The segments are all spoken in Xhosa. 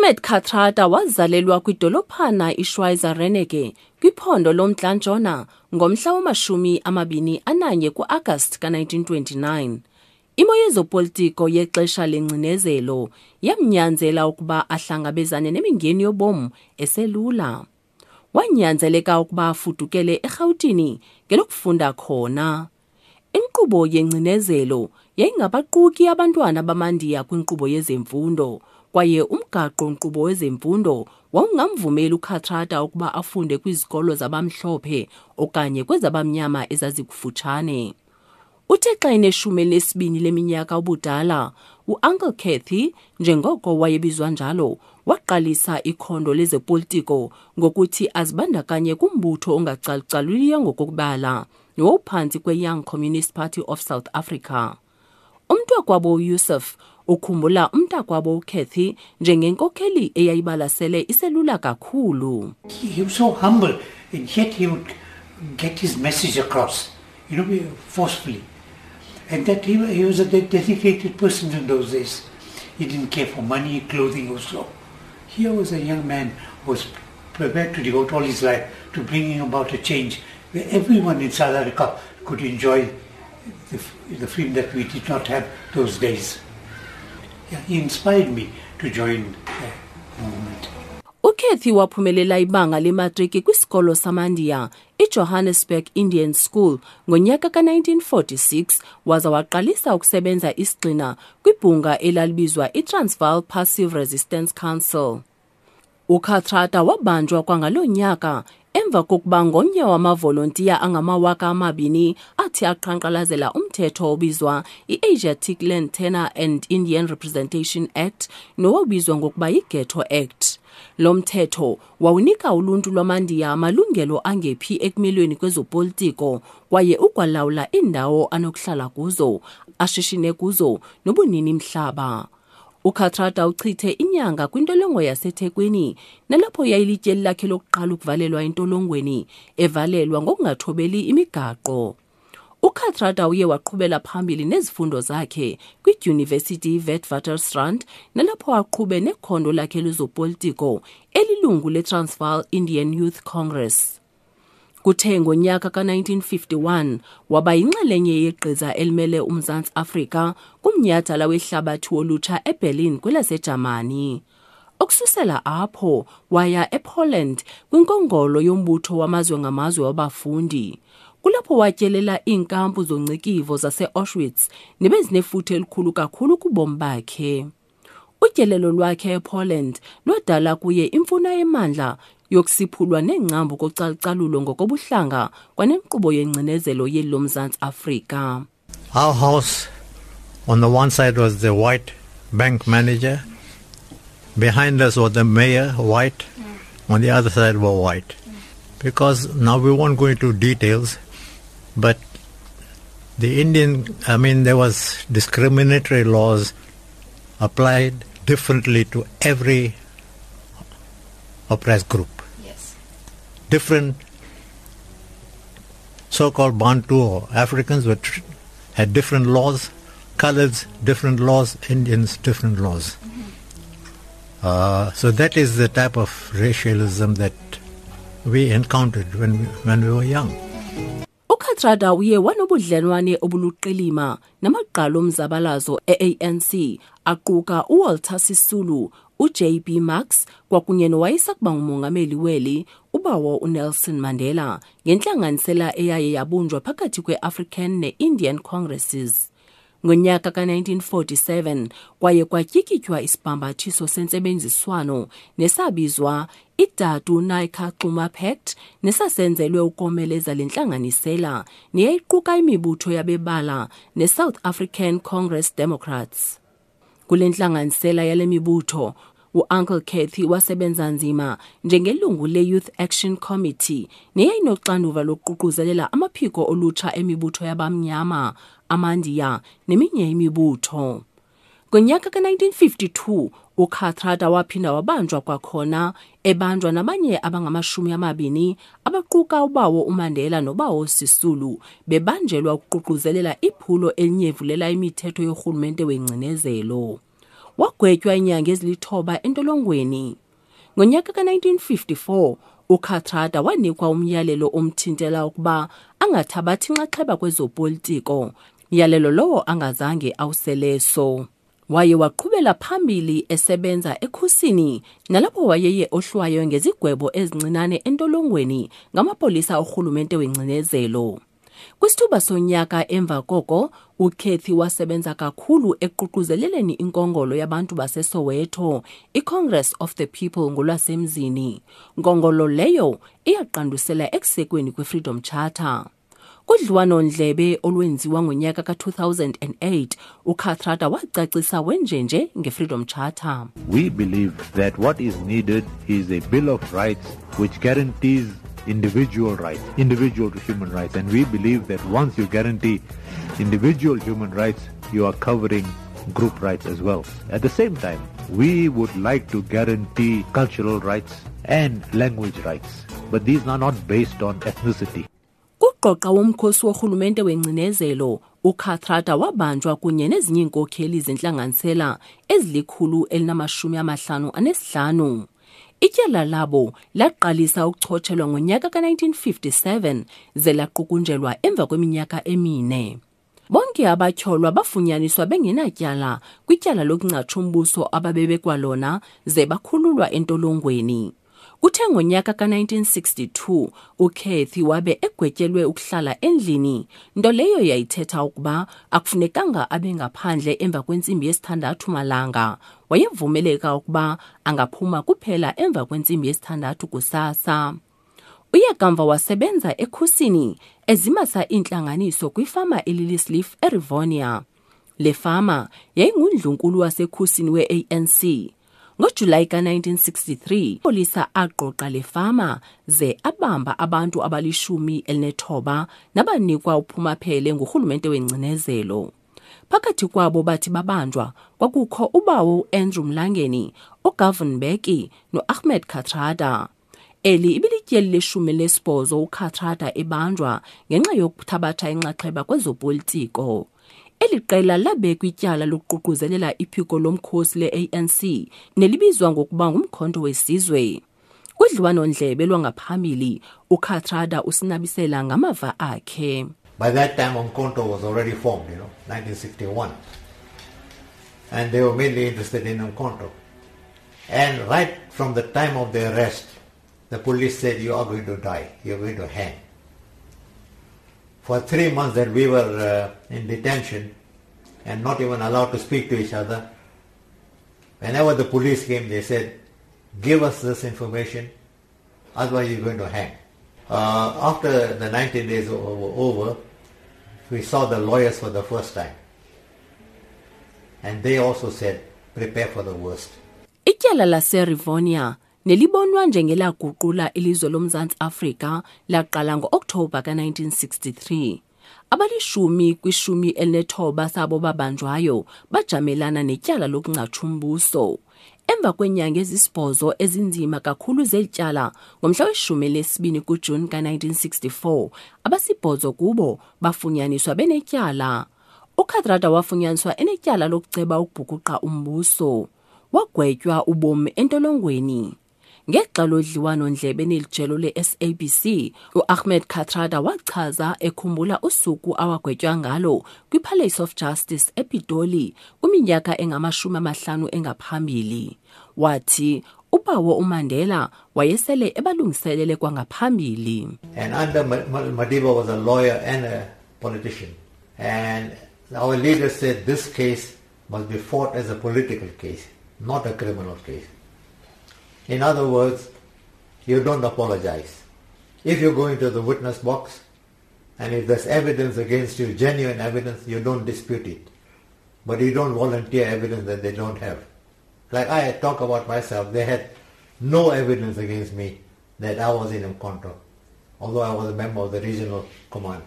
Ahmed Kathrada wazalelwa kwidolophana iSchweizer Reneke kwiphondo loMntla Ntshona ngomhla wamashumi 21 kuAgasti ka-1929. Imo yezopolitiko yexesha lengcinezelo yamnyanzela ukuba ahlangabezane nemingeni yobomi eselula. Wanyanzeleka ukuba afudukele eRhawutini ngelokufunda khona. Inkqubo yengcinezelo yayingabaquki abantwana bamaNdiya kwinkqubo yezemfundo, kwaye umgaqo-nkqubo wezemfundo wawungamvumeli uKathrada ukuba afunde kwizikolo zabamhlophe okanye kwezabamnyama ezazikufutshane. Uthe xa eneshumi elinesibini leminyaka ubudala, uUncle Cathy, njengoko wayebizwa njalo, waqalisa ikhondo lezopolitiko ngokuthi azibandakanye kumbutho ongacalucaluliyo ngokokubala nowawuphantsi kweYoung Communist Party of South Africa. Umntakwabo uYusuf ukhumbula umntakwabo uCathy njengenkokheli eyayibalasele iselula kakhulu. He was so humble and yet he would get his message across, forcefully. And that he was a dedicated person in those days. He didn't care for money, clothing or so. Here was a young man who was prepared to devote all his life to bringing about a change where everyone in South Africa could enjoy the freedom that we did not have those days. Yeah, he inspired me to join the movement. UKathy waphumelela ibanga lematriki kwisikolo samaNdiya iJohannesburg Indian School ngonyaka ka-1946 waza waqalisa ukusebenza isigxina kwibhunga elalibizwa iTransvaal Passive Resistance Council. UKathrada wabanjwa kwangaloo nyaka emva kokuba ngomnye wamavolontiya angama-2000 athi aqhankqalazela umthetho obizwa i-Asiatic Land Tenure and Indian Representation Act nowawubizwa ngokuba yi-Ghetto Act. Lo mthetho wawunika uluntu lwamaNdiya amalungelo angephi ekumelweni kwezopolitiko kwaye ukwalawula iindawo anokuhlala kuzo, ashishine kuzo nobunini mhlaba. UKathrada uchithe inyanga kwintolongo yaseThekwini nalapho yayilityeli lakhe lokuqala ukuvalelwa entolongweni evalelwa ngokungathobeli imigaqo. UKathrada uye waqhubela phambili nezifundo zakhe kwiDyunivesithi iWitwatersrand nalapho aqhube nekhondo lakhe lezopolitiko elilungu leTransvaal Indian Youth Congress. Kuthe ngonyaka ka-1951 waba yinxalenye yegqiza elimele uMzantsi Afrika kumnyhadala wehlabathi wolutsha eBerlin kwelaseJamani. Ukususela apho waya ePoland kwinkongolo yombutho wamazwe ngamazwe wabafundi. Kulapho watyelela iinkampu zongcikivo zase-Auschwitz nebezinefuthe elikhulu kakhulu kubomi bakhe. Utyelelo lwakhe ePoland lwadala kuye imfuno emandla yokusiphulwa neengcambu kocalucalulo ngokobuhlanga kwanenkqubo yengcinezelo yeli loMzantsi Afrika. Our house on the one side was the white bank manager. Behind us was the mayor, white. On the other side were white. Because now we won't go into details, but the Indian, I mean, there was discriminatory laws applied differently to every oppressed group. Different so-called Bantu or Africans had different laws, coloreds different laws, Indians different laws. So that is the type of racialism that we encountered when we were young. UKathrada uye wanobudlelwane obuluqilima namagqala omzabalazo e-ANC aquka uWalter Sisulu, uJB Marks kwakunye nowayesakuba ngumongameli weli ubawo uNelson Mandela ngentlanganisela eyaye yabunjwa phakathi kwe-African ne-Indian Congresses. Ngonyaka ka-1947 kwaye kwatyikitywa isibhambathiso sentsebenziswano nesabizwa iDatu Naicker Xuma Pact nesasenzelwe ukomeleza le ntlanganisela neyayiquka imibutho yabebala neSouth African Congress Democrats. Kule ntlanganisela yale mibutho, uUncle Cathy wasebenza nzima njengelungu le-Youth Action Committee neyayinoxanduva lokuququzelela amaphiko olutsha emibutho yabamnyama, amaNdiya neminye imibutho. Ngonyaka ka-1952 uKathrada waphinda wabanjwa kwakhona ebanjwa nabanye abangamashumi amabini abaquka ubawo uMandela nobawo Sisulu bebanjelwa ukuququzelela iphulo elinyevulela imithetho yorhulumente wengcinezelo. Wagwetywa iinyanga ezilithoba entolongweni. Ngonyaka ka-1954 uKathrada wanikwa umyalelo omthintela ukuba angathabathi nxaxheba kwezopolitiko, myalelo lowo angazange awuseleso. Waye waqhubela phambili esebenza ekhusini nalapho wayeye ohlwaywe ngezigwebo ezincinane entolongweni ngamapolisa orhulumente wengcinezelo. Kwisithuba sonyaka emva koko, uCathy wasebenza kakhulu ekuququzeleleni inkongolo yabantu baseSoweto, iCongress of the People ngolwasemzini. Nkongolo leyo iyaqandusela ekusekweni kweFreedom Charter. Kudliwano-ndlebe olwenziwa ngonyaka ka-2008, uKathrada wacacisa wenjenje ngeFreedom Charter. We believe that what is needed is a Bill of Rights which guarantees individual rights, individual human rights. And we believe that once you guarantee individual human rights, you are covering group rights as well. At the same time, we would like to guarantee cultural rights and language rights, but these are not based on ethnicity. Kugqoqa womkhosi worhulumente wengcinezelo, uKathrada wabanjwa kunye nezinye iinkokheli zentlanganisela ezili-155. Ityala labo laqalisa ukuchotshelwa ngonyaka ka-1957 ze laqukunjelwa emva kweminyaka emine. Bonke abatyholwa bafunyaniswa bengenatyala kwityala lokungcatsha umbuso ababebekwa lona ze bakhululwa entolongweni. Kuthe ngonyaka ka-1962 uCathy wabe egwetyelwe ukuhlala endlini, nto leyo yayithetha ukuba akufunekanga abe ngaphandle emva kwentsimbi yesithandathu malanga. Wayevumeleka ukuba angaphuma kuphela emva kwentsimbi yesithandathu kusasa. Uye kamva wasebenza ekhusini ezimasa iintlanganiso kwifama eLiliesleaf eRivonia. Le fama yayingundlunkulu wasekhusini we-ANC. NgoJulayi ka-1963, polisa agqogqa le fama ze abamba abantu abali-19 nabanikwa uphumaphele ngurhulumente wengcinezelo. Phakathi kwabo bathi babanjwa kwakukho ubawo uAndrew Mlangeni, uGovan Mbeki noAhmed Kathrada. Eli ibilityeli le-18 uKathrada ebanjwa ngenxa yokuthabatha inxaxheba kwezopolitiko. Eli qela labekwa ityala lokuququzelela iphiko lomkhosi le-ANC nelibizwa ngokuba ngumkhonto wesizwe. Kudliwano-ndlebe lwangaphambili, uKathrada usinabisela ngamava akhe. By that time, Umkhonto was already formed, 1961. And they were mainly interested in Umkhonto. And right from the time of the arrest, the police said, you are going to die, you are going to hang. For 3 months that we were in detention and not even allowed to speak to each other, whenever the police came, they said, give us this information, otherwise you're going to hang. After the 19 days were over, we saw the lawyers for the first time. And they also said, prepare for the worst. Ityala laseRivonia nelibonwa njengelaguqula ilizwe loMzantsi Afrika laqala ngo-Okthobha ka-1963. Abalishumi kwishumi elinethoba sabo babanjwayo bajamelana netyala lokungcatsha umbuso. Emva kweenyanga ezisibhozo ezinzima kakhulu zeli tyala, ngomhla we-12 kuJuni ka-1964, abasibhozo kubo bafunyaniswa benetyala. UKathrada wafunyaniswa enetyala lokuceba ukubhukuqa umbuso. Wagwetywa ubomi entolongweni. Ngexa lodliwano-ndlebe nelijelo le-SABC, uAhmed Kathrada wachaza ekhumbula usuku awagwetywa ngalo kwiPalace of Justice ePitoli kwiminyaka engama-50 engaphambili. Wathi ubawo uMandela wayesele ebalungiselele kwangaphambili. And under Madiba was a lawyer and a politician. And our leader said this case must be fought as a political case, not a criminal case. In other words, you don't apologize. If you go into the witness box, and if there's evidence against you, genuine evidence, you don't dispute it. But you don't volunteer evidence that they don't have. Like I talk about myself, they had no evidence against me that I was in Umkhonto, although I was a member of the regional command.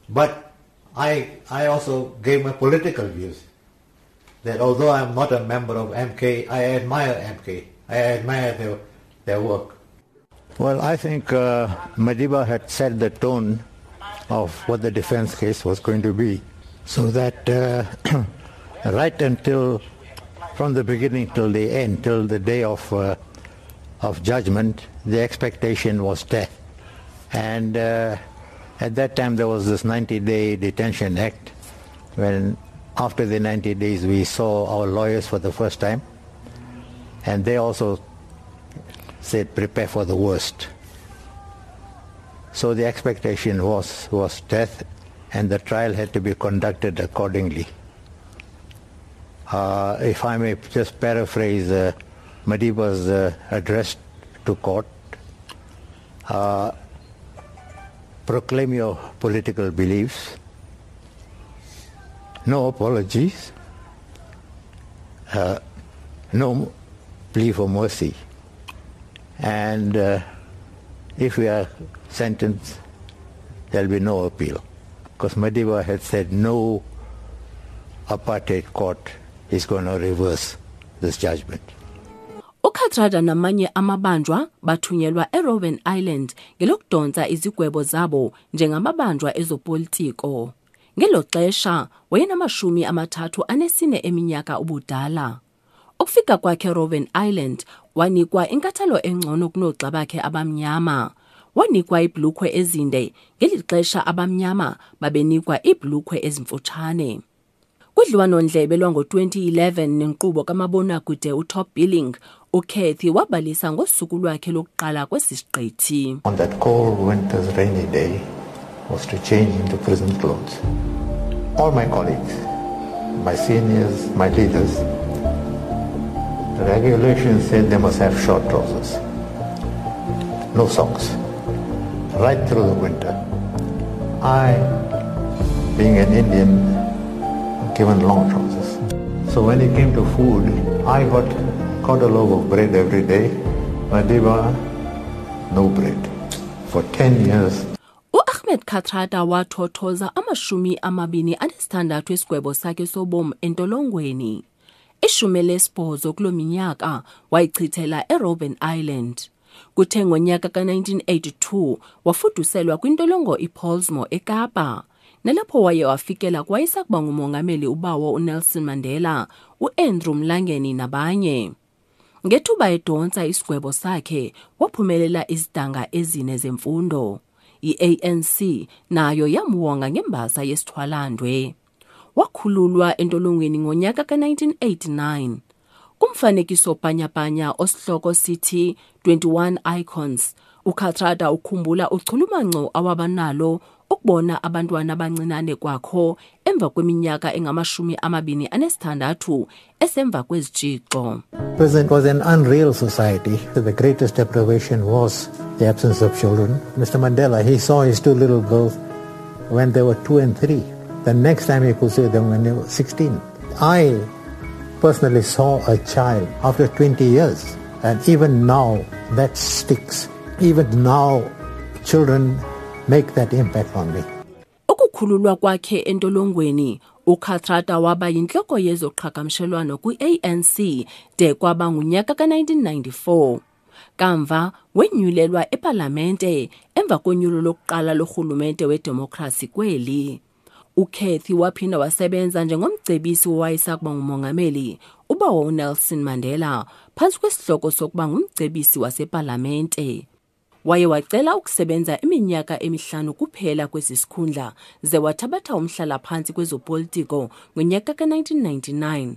But I also gave my political views, that although I'm not a member of MK, I admire MK. I admire their work. Well, I think Madiba had set the tone of what the defense case was going to be, so that right until From the beginning till the end, till the day of judgment, the expectation was death. And at that time there was this 90-day detention act, when after the 90 days we saw our lawyers for the first time, and they also said prepare for the worst. So the expectation was death, and the trial had to be conducted accordingly. If I may just paraphrase Madiba's address to court, proclaim your political beliefs, no apologies, no plea for mercy, and if we are sentenced, there will be no appeal. Because Madiba had said no apartheid court is going to reverse this judgment. UKathrada namanye amabanjwa bathunyelwa eRobben Island ngelokudonsa izigwebo zabo njengamabanjwa ezopolitiko. Ngelo xesha wayenama-34 eminyaka ubudala. Ukufika kwakhe eRobben Island wanikwa inkathalo engcono kunoogxa bakhe abamnyama. Wanikwa iibhulukhwe ezinde ngeli xesha abamnyama babenikwa iibhulukhwe ezimfutshane. Kudliwano-ndlebe lwango-2011 nenkqubo kamabonakude uTop Billing, uCathy wabalisa ngosuku lwakhe lokuqala kwesi siqithi. On that cold winter's rainy day was to change into prison clothes. All my colleagues, my seniors, my leaders, the regulations said they must have short trousers, no socks, right through the winter. I, being an Indian, given long trousers. So when it came to food, I got a loaf of bread every day. Madiba, no bread. For 10 years. U-Ahmed Kathrada wathothoza 26 esigwebo sakhe sobomi entolongweni. 18 kuloo minyaka wayichithela eRobben Island. Kuthe ngonyaka ka-1982 wafuduselwa kwintolongo iPollsmoor eKapa. Nalapho waye wafikela kwayesakuba ngumongameli ubawo uNelson Mandela, uAndrew Mlangeni nabanye. Ngethuba edonsa isigwebo sakhe waphumelela izidanga ezine zemfundo. I-ANC nayo yamwonga ngembasa yesithwalandwe. Wakhululwa entolongweni ngonyaka ka-1989. Kumfanekiso bhanyabhanya osihloko sithi 21 Icons, uKathrada ukhumbula uchulumanco awabanalo ukubona abantwana abancinane kwakho emva kweminyaka engama-26 esemva kwezitshixo. Prison was an unreal society. The greatest deprivation was the absence of children. Mr. Mandela, he saw his two little girls when they were 2 and 3. The next time he could see them when they were 16. I personally saw a child after 20 years, and even now that sticks. Even now children make that impact on me. Ukukhululwa kwakhe entolongweni, uKathrada waba yintloko yezoqhagamshelwano kwi-ANC de kwaba ngunyaka ka-1994. Kamva wenyulelwa epalamente emva konyulo lokuqala lorhulumente wedemokhrasi kweli. uCathy waphinda wasebenza njengomcebisi owayesakuba ngumongameli ubawo uNelson Mandela phantsi kwesihloko sokuba ngumcebisi wasepalamente. Waye wacela ukusebenza iminyaka 5 kuphela kwesi sikhundla ze wathabatha umhlala-phantsi kwezopolitiko ngonyaka ka-1999.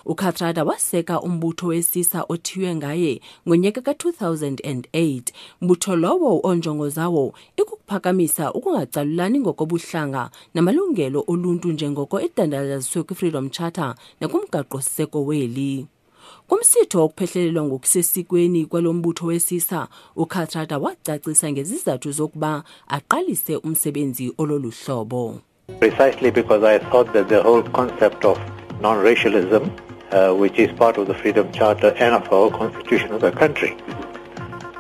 UKathrada waseka umbutho wesisa othiywe ngaye ngonyaka ka-2008, mbutho lowo onjongo zawo ikukuphakamisa ukungacalulani ngokobuhlanga namalungelo oluntu njengoko edandalaziswe kwi-Freedom Charter nakumgaqo-siseko weli. Kumsitho wokuphehlelelwa ngokusesikweni kwalo mbutho wesisa, uKathrada wacacisa ngezizathu zokuba aqalise umsebenzi ololu hlobo. Precisely because I thought that the whole concept of non-racialism, which is part of the Freedom Charter and of our constitution of the country,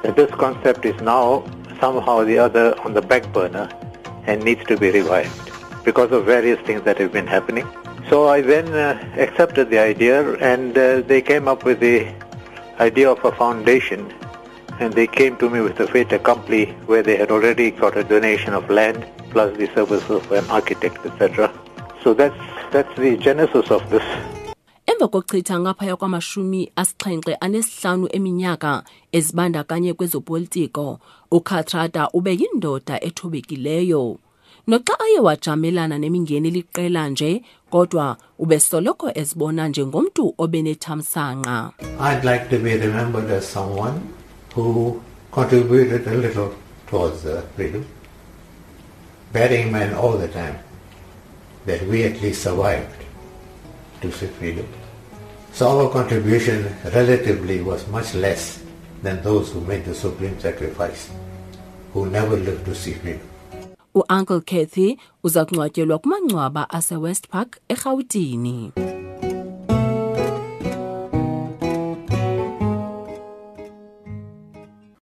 that this concept is now somehow or the other on the back burner and needs to be revived because of various things that have been happening. So I then accepted the idea, and they came up with the idea of a foundation, and they came to me with the fait accompli where they had already got a donation of land plus the services of an architect, etc. So that's the genesis of this. Emva Emva kokuchitha ngaphaya kwamashumi 75 eminyaka ezibandakanye kwezopolitiko, uKathrada ube yindoda ethobekileyo. Noxa aye wajamelana nemingeni liqela nje, kodwa ubesoloko ezibona njengomntu obenethamsanqa. I'd like to be remembered as someone who contributed a little towards the freedom, bearing in mind all the time that we at least survived to see freedom. So our contribution relatively was much less than those who made the supreme sacrifice, who never lived to see freedom. U-Uncle Kathy uza kungcwatyelwa kumangcwaba aseWest Park eRhawutini.